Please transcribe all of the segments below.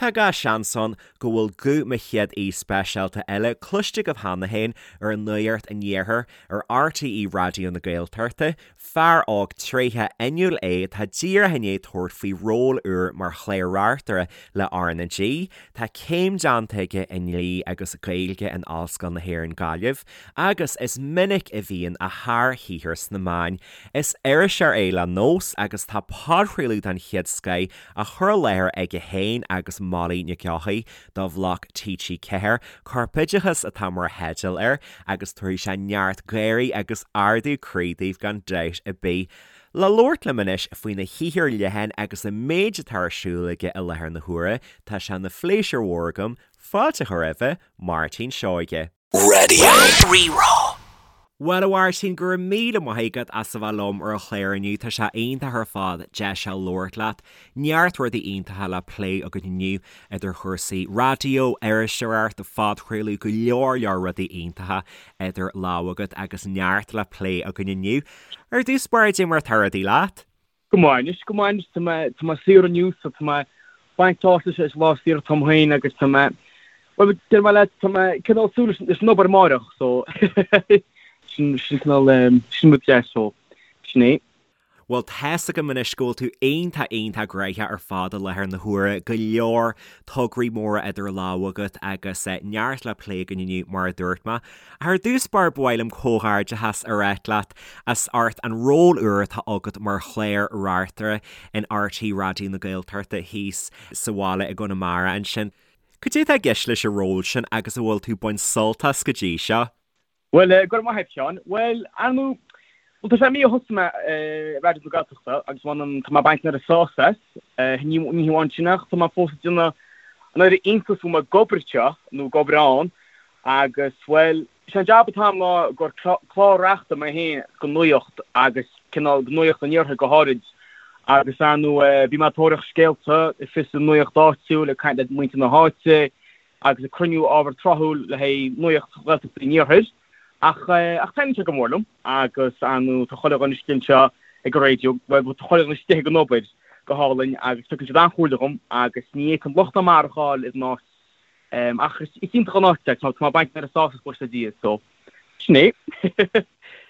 Tá gach seans ann go bhfuil guth mo chéad aoi speisialta eile cloiste agaibh cheana féin ar Nuacht an Iarthair ar RTÉ Raidió na Gaeltachta, fear óg tréitheach fhuinniúil é atá díreach i ndiaidh tabhairt faoi ról úr mar chlár-reachtaire le RnaG. Tá céim déanta aige i ndlí agus Gaeilge in Ollscoil na hÉireann Gaillimh agus is minic a bhíonn a shárshaothar sna meáin. Is iriseoir é le nós agus tá podchraoladh den chéad scoith á chur i láthair aige féin agus Molly Nic Eochaidh do Bhloc TG4, Corpoideachas atá mar theideal air agus tabharfaidh sé neart gáirí agus ardú croí daoibh gan dabht ar bith. Le labhairt liom anois faoina shaothar leathan agus an méid atá ar siúl aige i láthair na huaire, tá sé ina phléisiúr mhór agam fáilte a chur roimhe, Máirtín Seoige. Raidió Rí-Rá. Bhuel, a Mháirtín, go raibh míle maith agat as a bheith liom ar an chlár inniu. Tá sé iontach ar fad deis a labhairt leat. Neart rudaí iontacha le plé againn inniu, idir chúrsaí raidió, iriseoireacht, phodchraoladh, go leor leor rudaí iontacha idir lámha agat agus neart le plé againn inniu. Ar dtús báire, cad é mar atá rudaí leat? Go maith anois, go maith anois, tá mé, tá mé saor inniu so tá mé ag baint sult as, is lá saor atá agam féin agus tá mé, bhuel deir mé leat, tá mé cineál súil leis, leis an obair amáireach so sin, sin cineál, sin rud deas so sin é. Bhuel tá's agam anois go bhfuil tú iontach iontach gnoitheach ar fad i láthair na huaire, go leor tograí móra idir lámha agat agus neart le plé againn inniu mar a dúirt mé. Ar dtús báire ba mhaith liom comhghairdeachas a ráit leat as ucht an ról úr atá agat mar chlár-reachtaire in RTÉ Raidió na Gaeltachta thíos sa bhaile i gConamara ansin. Cad é atá i gceist leis an ról sin agus an bhfuil tú ag baint sult as go dtí seo? Bhuel, go raibh maith agat, Seán. Bhuel, ar ndóigh, bhuel, tá sé mí ó thosaigh mé i Raidió na Gaeltachta agus bhuel, tá mé ag baint an oiread sásamh as. Ní hamháin sin ach tá mé fós ag déanamh an oiread iontais go bhfuil mé ag obair anseo nó ag obair ann Agus, bhuel, sé an jab atá agam ná gur clár-reachtaire mé féin go Nuacht agus cineál go Nuacht an Iarthair go háirid. Agus, ar ndóigh, bím ag tóraíocht scéalta, ag fiosrú nuacht áitiúil, ag caint le muintir na háite agus ag cruinniú ábhar tráthúil le haghaidh Nuacht Ghaeltachta an Iarthair. Ach, ach taitníonn sé go mór liom agus, ar ndóigh, tá chuile dhuine istigh anseo ag an raidió, bhuel, tá chuile dhuine istigh ag an obair go hálainn agus tugann siad an-chomhairle dhom agus ní fhéadfainn locht ná mar a fháil ar an áit. Ach is iontach an áit é, tá mé ag baint an oiread sásamh as buíochas le Dia, so sin é.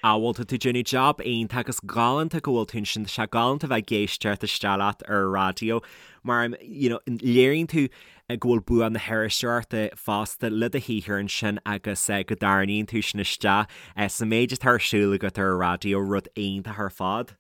Ah bhuel tá tú déanamh jab iontach agus galánta go bhfuil tú ansin, tá sé galánta bheith ag éisteacht isteach leat ar an raidió mar you know léiríonn tú go bhfuil bua na hiriseoireachta fosta le do shaothar ansin agus go dtarraingíonn tú sin isteach sa méid atá ar siúl agat ar an raidió, rud iontach ar fad.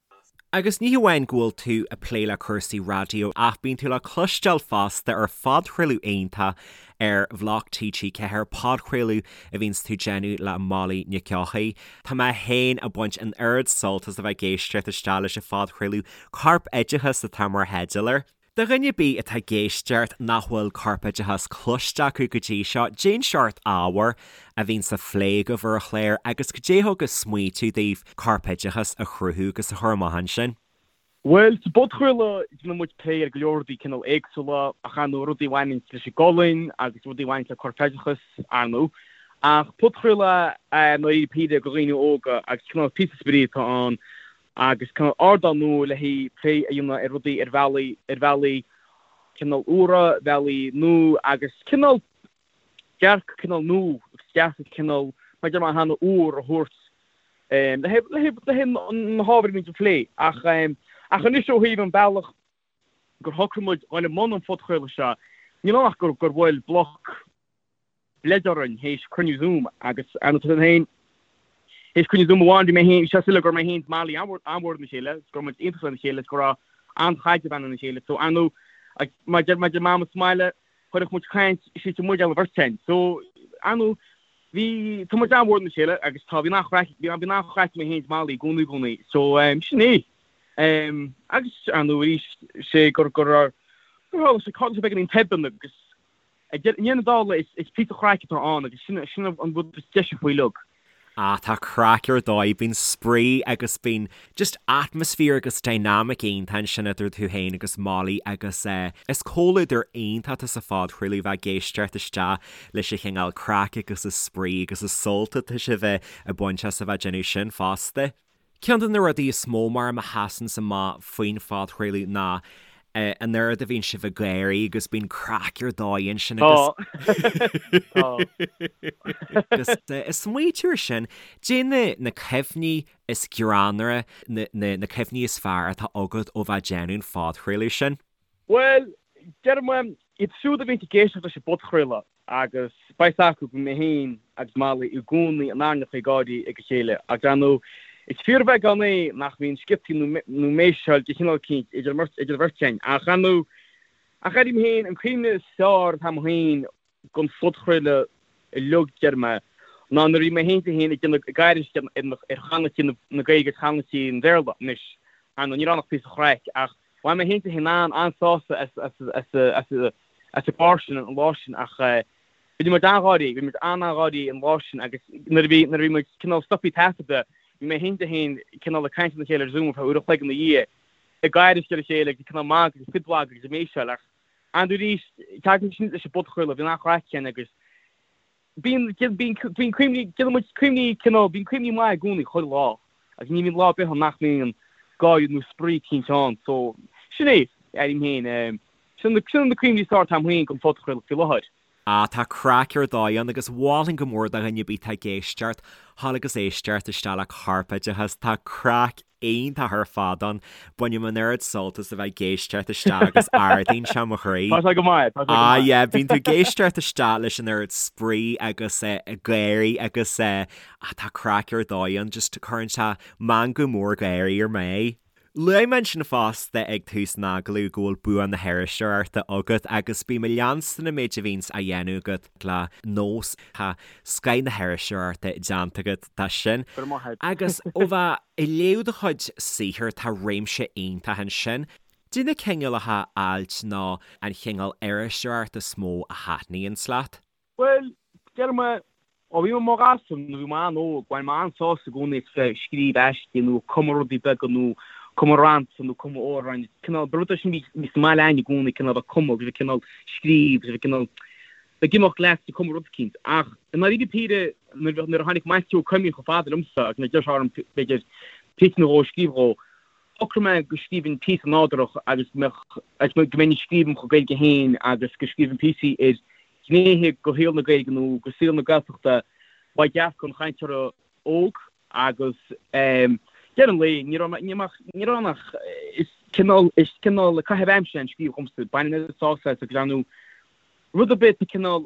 Agus ní hamháin go bhfuil tú ag plé le cúrsaí raidió ach bíonn tú le cloisteáil fosta ar phodchraoladh iontach ar Bhloc TG4, podchraoladh a bhíonns tú déanamh le Molly Nic Eochaidh. Tá mé féin ag baint an oiread sult as a bheith ag éisteacht isteach leis an phodchraoladh, Corpoideachas atá mar theideal air. Do dhuine ar bith atá ag éisteacht nach bhfuil Corpoideachas cloiste acu go dtí seo, cén seort ábhair a bhíonns á phlé agaibh ar an chlár agus cad é thug an smaoitiú daoibh Corpoideachas a chruthú agus a chur amach ansin? Bhuel, sa bpodchraoladh déanann muid plé ar go leor rudaí cineál éagsúla ach ar ndóigh rudaí a bhaineann leis an gcolainn agus rudaí a bhaineann le corpoideachas, ar ndóigh. Ach podchraoladh é i ndáiríre píre do dhaoine óga agus cineál píosa spraoi atá ann agus cineál ardán nua le haghaidh plé a dhéanamh ar rudaí ar bhealaí, ar bhealaí cineál úra, bealaí nua agus cineál dearcadh cineál nua agus dearcadh cineál, mar a deir mé cheana, úr a thabhairt le haghaidh, le haghaidh, le haghaidh na hábhair a bhíonn á phlé. Ach, ach anois ó thaobh an bealach gur shocraigh muid dhul i mbun an phodchraoladh seo, níl ann ach gur, gur bhuail Bloc, bleid orainn théis cruinniú Zoom agus ar ndóigh tá féin théis cruinniú Zoom amháin bhí mé féin bhí sé soiléir go raibh mé féin is Molly an-mhór lena chéile is go raibh muid iontach lena chéile is go raibh an-chaidreamh againn lena chéile so ar ndóigh agus mar deir mar deir Mama sa mbaile chuirfeadh muid caint istigh muid ar an bheirt againn so ar ndóigh bhí tá muid an-mhór lena chéile agus tá bhí an-chraic bhí bhí an-chraic mé féin is Molly i gcónaí i gcónaí so sin é agus ar ndóigh arís sé gur gur gur tharla sé tharla sé beagáinín tobann agus I ndeireadh na dála, is píosa craic atá ann agus sin an rud is deise faoi uilig. Ah, tá craic ar dóigh, bíonn spraoi agus bíonn just atmaisféar agus dynamic iontach ansin idir tú féin agus Molly agus eh, is comhluadar iontach atá sa phodchraoladh bheith ag éisteacht isteach leis an chineál craic agus an spraoi agus an sult atá sibh ag baint as a bheith ag déanamh sin fosta. Ceann de na rudaí is mó mar a sheasanns amach faoin phodchraoladh ná. An oiread a bhíonn sibh ag gáirí agus bíonn craic ar dóigh ansin agus Tá. Agus ag smaoitiú ar sin, caidé na na cuimhní is greannmhaire, na na na cuimhní is fearr atá agat ó bheith ag déanamh an phodchraoladh sin? Bhuel, déarfaidh mé, iad siúd a bhíonn ag éisteacht leis an bpodchraoladh, Agus beidh 's acu go mbím mé féin agus Molly i gcónaí in airneacha ag gáirí ag a chéile. Agus ar ndóigh, is fíorbheagán é nach mbíonn sciotaí nó méiseáil de chineál eicínt idir an bheirt againn. Ach ar ndóigh, ach airím féin, an cuimhne is fearr atá agam féin den phodchraoladh uilig, déarfaidh mé, ná nuair a bhí mé féin féin ag déanamh ag aithris ar chanúintí na Gaeilge agus chanúintí an Bhéarla. Anois, ar ndóigh, ní raibh ann ach píosa chraic, ach bhain mé féin féin an-sásamh as as as an gclár sin an lá sin ach bhí muid an-gháirí, bhí muid an-an-gháirí an lá sin agus nuair a bhí, nuair a bhí muid cineál stoptha taifeadta, bhí mé féin féin cineál ag caint lena chéile ar Zoom ar feadh uair an chloig ina dhiaidh, ag aithris ar a chéile agus cineál magadh agus fiddleadh agus ag méiseáil ach ar ndóigh arís, tagann sin leis an bpodchraoladh, bhíonn an-chraic ann agus Bíonn, bíonn, bíonn cuimhní, déanann muid cuimhní cineál, bíonn cuimhní maith i gcónaí chuile lá agus ní bhíonn lá ar bith ann nach mbíonn gáire nó spraoi eicínt ann so sin é, airím féin, sin na, sin na cuimhní is fearr atá agam féin den phodchraoladh faoi láthair. Ah, tá craic ar dóigh ann agus mholfainn go mór do dhuine ar bith atá ag éisteacht, thall agus éisteacht isteach le Corpoideachas, tá craic iontach ar fad ann. Bainim an oiread sult as a bheith ag éisteacht isteach agus ardaíonn sé mo chroí. Tá sé go maith, tá sé go Ah maith. yeah, bíonn tú ag éisteacht isteach leis an oiread spraoi agus gáirí agus ah tá craic ar dóigh ann, just cuireann sé meangadh mór gáirí ar m'aghaidh. Luaigh mé ansin fosta ag tús an agallaimh go bhfuil bua na hiriseoireachta agat agus bím ag leanstan an méid a bhíonns á dhéanamh agat le nós. Tá scoith na hiriseoireachta déanta agat de sin. Go raibh maith agat. Agus ó bheith ag léamh do chuid saothair tá réimse iontach ansin. Caidé na cineálacha ailt nó an chineál iriseoireachta is mó a thaitníonns leat? Bhuel, déarfaidh mé, ó bhí mé i mo ghasúr nó bhí mé an-óg, bhain mé an-sásamh i gcónaí as bheith ag scríobh aistí nó ag cumadh rudaí beaga nó cumadh rannta nó cumadh amhráin. Cineál, ba rud é sin a bhí, bhí sa mbaile againn i gcónaí, cineál bheith ag cumadh agus bheith cineál scríobh agus bheith cineál ag imeacht leat ag cumadh rud eicínt. Ach i ndáiríre píre, nuair a nuair a tháinig Maitiú Ó Coimín chomh fada liomsa agus nuair a d'iarr sé orm b'fhéidir píosa nó dhó a scríobh dhó, shocraigh mé go scríobhfainn píosa nádúrach agus go mbeadh, agus go mbeinn ag scríobh im chuid Gaeilge féin agus go scríobhfainn píosaí ar ghnéithe de shaol na Gaeilge nó de saol na Gaeltachta ó dhearcadh an chainteora óg agus deireadh an lae ní raibh ní raibh ní raibh ann ach is cineál is cineál caitheamh aimsire an scríobh dhomsa bainim an-sásamh as agus ar ndóigh rud ar bith cineál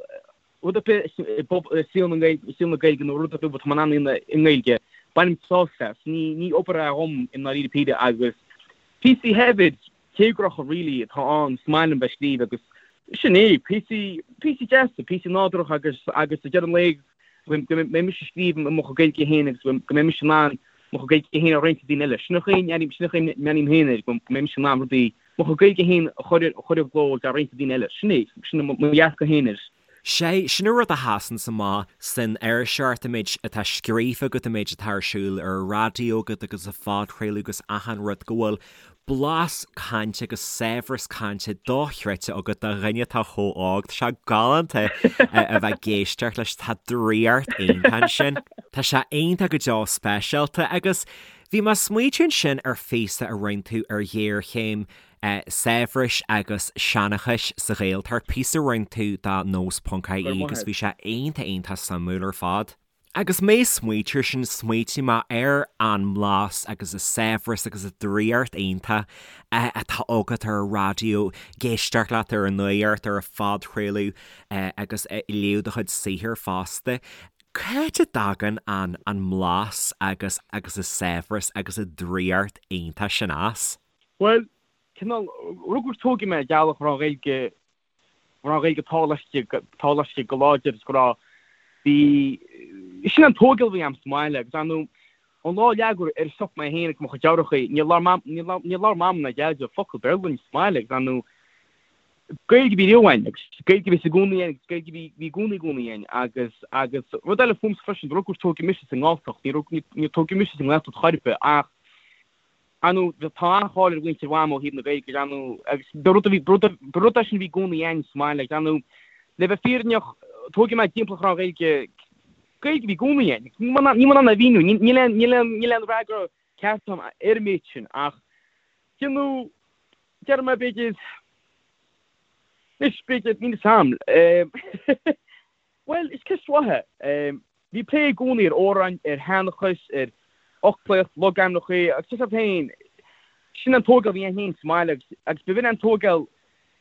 rud ar bith i saol na saol na Gaeilge nó rud ar bith atá mé in ann a dhéanamh i nGaeilge bainim sásamh as ní ní obair é dhom i ndáiríre píre agus píosaí shaibhir téagartha really atá ann is maith liom bheith ag scríobh agus sin é, píosaí, píosaí deasa, píosaí nádúrtha agus, agus ag deireadh an lae go mbeidh mise ag scríobh i mo chuid Gaeilge féin agus go mbeidh mise in ann mo chuid Gaeilge féin a roinnt le daoine eile. Sin an chaoi, sin an chaoi a mbreathnaím féin air, go mbeidh mise in ann rudaí, mo chuid Gaeilge féin a chur, a chur i gcló agus a roinnt le daoine eile. Sin é, sin mo dhearcadh féin air. Sé, sin an rud a sheasanns amach san iriseoireacht, an méid atá scríofa agat, an méid atá ar siúl ar an raidió agat agus sa phodchraoladh agus achan rud, go bhfuil blas cainte agus saibhreas cainte dochreidte agat do dhuine atá chomh óg. Tá sé galánta a bheith ag éisteacht leis, tá draíocht iontach ansin. Tá sé iontach go deo speisialta agus bhí mé ag smaoitiú ansin ar phíosa a rinne tú ar ghéarchéim saibhris agus seanchais sa Ghaeltacht, píosa a rinne tú do nós ponc ie agus bhí sé iontach iontach suimiúil ar fad. Agus mé ag smaoitiú ar sin, smaoitigh mé ar an mblas agus an saibhreas agus an draíocht iontach atá agat ar an raidió, ag éisteacht leat ar an nuacht, ar an phodchraoladh agus ag léamh do chuid saothair fosta. Cá háit a dtagann an an mblas agus agus an saibhreas agus an draíocht iontach sin as? Bhuel, cineál, rugadh is tógadh mé i dteaghlach a raibh an Ghaeilge, a raibh an Ghaeilge taobh laistigh go láidir is go raibh, bhí, sin an tógáil a bhí a'm sa mbaile agus ar ndóigh, ón lá a leagadh ar an stop mé féin agus mo chuid deartháireacha, níor labhair Mam, níor labhair, níor labhair Mam ná Deaide focal Béarla linn sa mbaile agus ar ndóigh, Gaeilge a bhí riamh againn agus Gaeilge a bhí i gcónaí againn agus Gaeilge a bhí, bhí i gcónaí i gcónaí againn agus, agus rud eile fúmsa freisin, rugadh is tógadh mise sa nGalltacht, ní rug, níor tógadh mise sa nGaeltacht chor ar bith ach, Ar ndóigh, tá an-cháil ar mhuintir Mham ó thaobh na Gaeilge, ar ndóigh, agus ba rud a bhí, ba rud é sin a bhí i gcónaí againn sa mbaile, agus ar ndóigh, le bheith fírinneach, tógadh mé timpeall go raibh an Ghaeilge, Gaeilge a bhí i gcónaí againn. Níl mé in ann a mhíniú, níl aon, níl aon, níl aon fhreagra ceart agam ar an méid sin, ach, you know. Déarfaidh mé b'fhéidir, anois b'fhéidir, níl 'fhios a'm. Bhuel, is ceist mhaith é. Bhí plé i gcónaí ar amhráin, ar sheanchas, ar fhoclaíocht, logainmneacha agus tá 'fhios a'd féin, sin an tógáil a bhí a'inn féin sa mbaile agus agus b'in an tógáil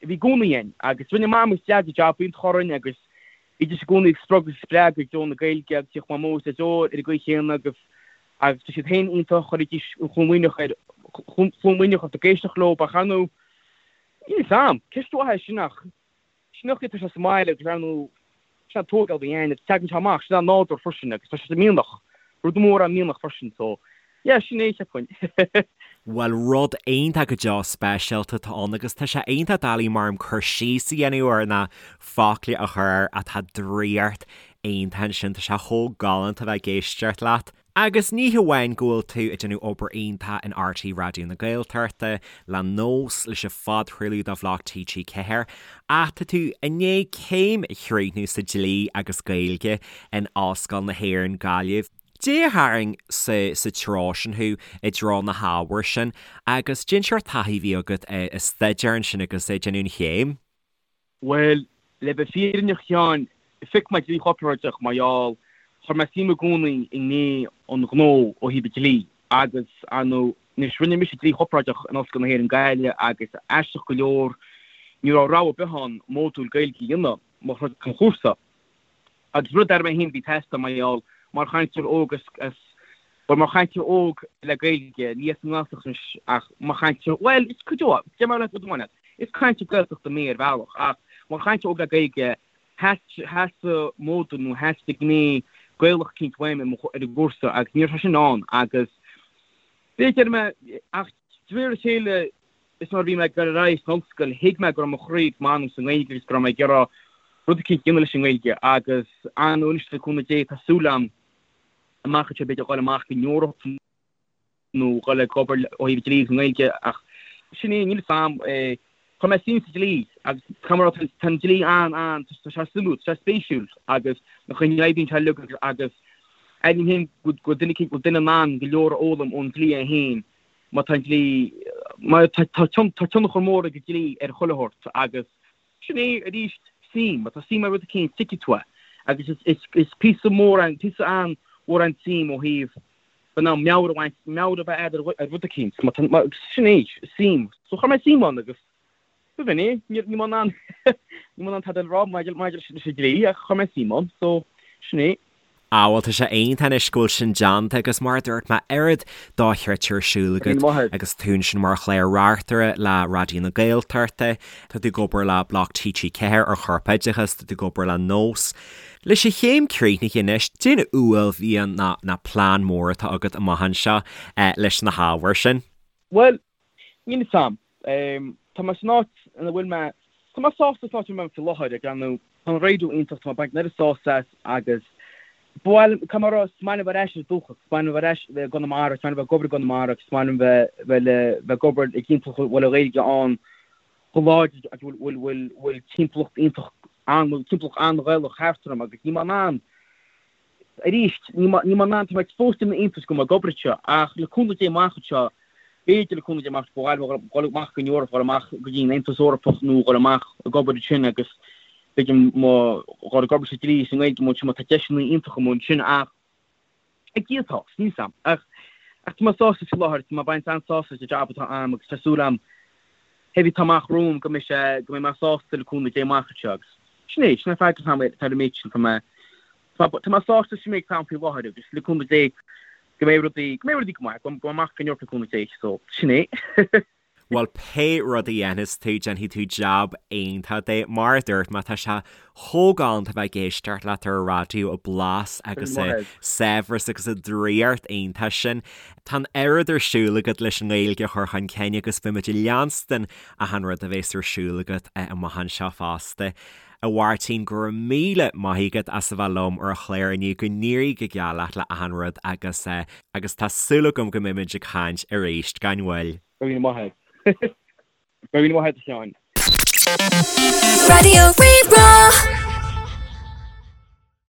a bhí i gcónaí a'inn agus rinne Mam agus Deaid jab iontach orainn agus bhídís i gcónaí ag spreagadh agus spreagadh i dtreo na Gaeilge agus bhíodh Mamó is Daideo ar an gcaoi chéanna agus agus tá siad féin iontach, chuiridís an chluain Mhuimhneach ar chluain Mhuimhneach ort ag éisteacht leo ach ar ndóigh níl 'fhios a'm, ceist mhaith é sin ach sin an chaoi atá sé sa mbaile agus ar ndóigh sin an tógáil a bhí a'inn agus tagann sé amach, sin an nádúr freisin agus tá sé sa mhianach, rud mór an mianach freisin so yeah sin é cheapfainn. Bhuel rud iontach go deo speisialta atá ann agus tá sé iontach doiligh mar cur síos a dhéanamh air ná focla a chur air ach tá draíocht iontach ansin, tá sé chomh galánta bheith ag éisteacht leat. Agus ní hamháin go bhfuil tú ag déanamh obair iontach in RTÉ Raidió na Gaeltachta, le Nós, leis an phodchraoladh do Bhloc TG4, ach tá tú i ndiaidh céim a chríochnú sa Dlí agus Gaeilge in Ollscoil na hÉireann, Gaillimh. Cad é a tharraing sa sa treo sin thú, i dtreo na hábhair sin, agus cén seort taithí a bhí agat ag staidéar ansin agus ag déanamh an chéim. Bhuel, le bheith fírinneach a Sheáin, phioc mé dlí chorparáideach mar gheall, chuir mé suim i gcónaí i ngné an ghnó ó thaobh an dlí agus, ar ndóigh, anois rinne mise dlí chorparáideach in Ollscoil na hÉireann Gaillimh agus aisteach go leor ní raibh rogha ar bith ann módúil Gaeilge a dhéanamh mar chuid den chúrsa. Agus rud dar mé féin a bhí ag teastáil mar gheall, mar chainteoir óg as, bhuel, mar chainteoir óg le Gaeilge, ní as an nGaeltacht anois ach mar chainteoir, bhuel, is cuid de, deir mé leat rud amháin leat, is cainteoir Gaeltachta mé ar bhealach ach mar chainteoir óg le Gaeilge, theastaigh módúil nó theastaigh gné Gaelach eicínt uaim ar an gcúrsa agus ní raibh sé sin ann agus b'fhéidir mé, ach de réir a chéile, Is nuair a bhí mé ag dul ar aghaidh san ollscoil, thuig mé go raibh mo chroí agus m'anam sa nGaeilge agus go raibh mé ag iarraidh rud eicínt a dhéanamh leis an nGaeilge agus ar ndóigh anois le cúnamh Dé tá súil agam amach anseo b'fhéidir dhul amach go Eoraip nó dhul ag obair ó thaobh dlí agus an nGaeilge ach sin é, níl fhios a'm. Chuir mé suim sa dlí agus caithfidh mé a rá tá an dlí an, an, tá sé suimiúil, tá sé spéisiúil agus na chaoi a n-oibríonn sé uilig agus airím féin go bhfuil duine eicínt, go bhfuil duine in ann go leor a fhoghlaim ón dlí é féin. Má tá an dlí, má tá tionchar mór ag an dlí ar chuile shórt agus sin é arís suim, má tá suim i rud eicínt tuigfidh tú é agus is píosa mór an, píosa an-mhór an tsuim ó thaobh bheith in ann meabhair a bhaint, meabhair a bheith agat ar rud eicínt, má tá, sin é, suim. So chuir mé suim ann agus b'in é, níl mé in ann, níl mé in ann tada a rá maidir leis an dlí ach chuir mé suim ann, so sin é. Ah bhuel tá sé iontach anois go bhfuil sin déanta agus mar a dúirt mé oiread dochreidte ar siúl agat agus tú ansin mar chlár-reachtaire le Raidió na Gaeltachta, tá tú ag obair le Bloc TG4 ar chorpoideachas, tá tú ag obair le Nós. Leis an chéim críochnaithe anois, cén uaillmhian ná ná plean mór atá agat amach anseo leis na hábhair sin? Bhuel, Níl fhios a'm. Tá mé san áit ina bhfuil mé, tá mé sásta san áit ina bhfuil mé faoi láthair, ag breathnú, tá an raidió iontach, tá mé ag baint an oiread sásamh as agus ba mhaith liom, caithfidh mé a rá, is maith liom bheith ar ais ar dúchas, is maith liom bheith ar ais i gConamara, is maith liom bheith ag obair i gConamara agus is maith liom bheith, bheith le, bheith ag obair i dtimpeallacht a bhfuil an Ghaeilge ann chomh láidir agus bhfuil, bhfuil, bhfuil, bhfuil timpeallacht iontach an, bhfuil timpeallacht an-Ghaelach thart orm agus níl mé in ann, Arís, níl mé in ann, tá mé fós ag déanamh iontais go bhfuil mé ag obair anseo, ach le cúnamh Dé amach anseo, b'fhéidir le cúnamh Dé amach, ba mhaith liom dhul amach go Eoraip, dhul amach go dtí an Aontas Eorpach nó dhul amach ag obair ansin agus b'fhéidir mo dhul ag obair sa dlí is i nGaeilge amuigh ansin, má tá deiseanna iontacha amuigh ansin ach ag Dia atá, níl 'fhios a'm. Ach tá mé sásta faoi láthair, tá mé ag baint an-sásamh as an jab atá a'm agus tá súil a'm, pé ar bith atá amach romham go mbeidh sé, go mbeidh mé sásta le cúnamh Dé amach anseo agus sin é, sin é freagra atá a'm ar an méid sin, tá mé Tá mé sásta leis an méid atá ann faoi láthair agus le cúnamh Dé go mbeidh rudaí, go mbeidh rudaí go maith, go mbeidh amach go Eoraip le cúnamh Dé, so sin é. Bhuel, pé rud a dhéanfas tú, déanfaidh tú jab iontach de. Mar a dúirt mé, tá sé chomh galánta bheith ag éisteacht leat ar an raidió, an blas agus an saibhreas agus an draíocht iontach sin. Tá an oiread ar siúl agat leis an nGaeilge a chur chun cinn agus beimid ag leanstan achan rud a bhéas ar siúl agat amach anseo fosta. A Mháirtín, go raibh míle maith agat as a bheith liom ar an chlár inniu, go n-éirí go geal leat le achan rud agus agus tá súil agam go mbeimid ag caint arís gan mhoill. Go raibh míle maith agat. Go raibh míle maith agat a Sheáin. Raidió Rí-Rá.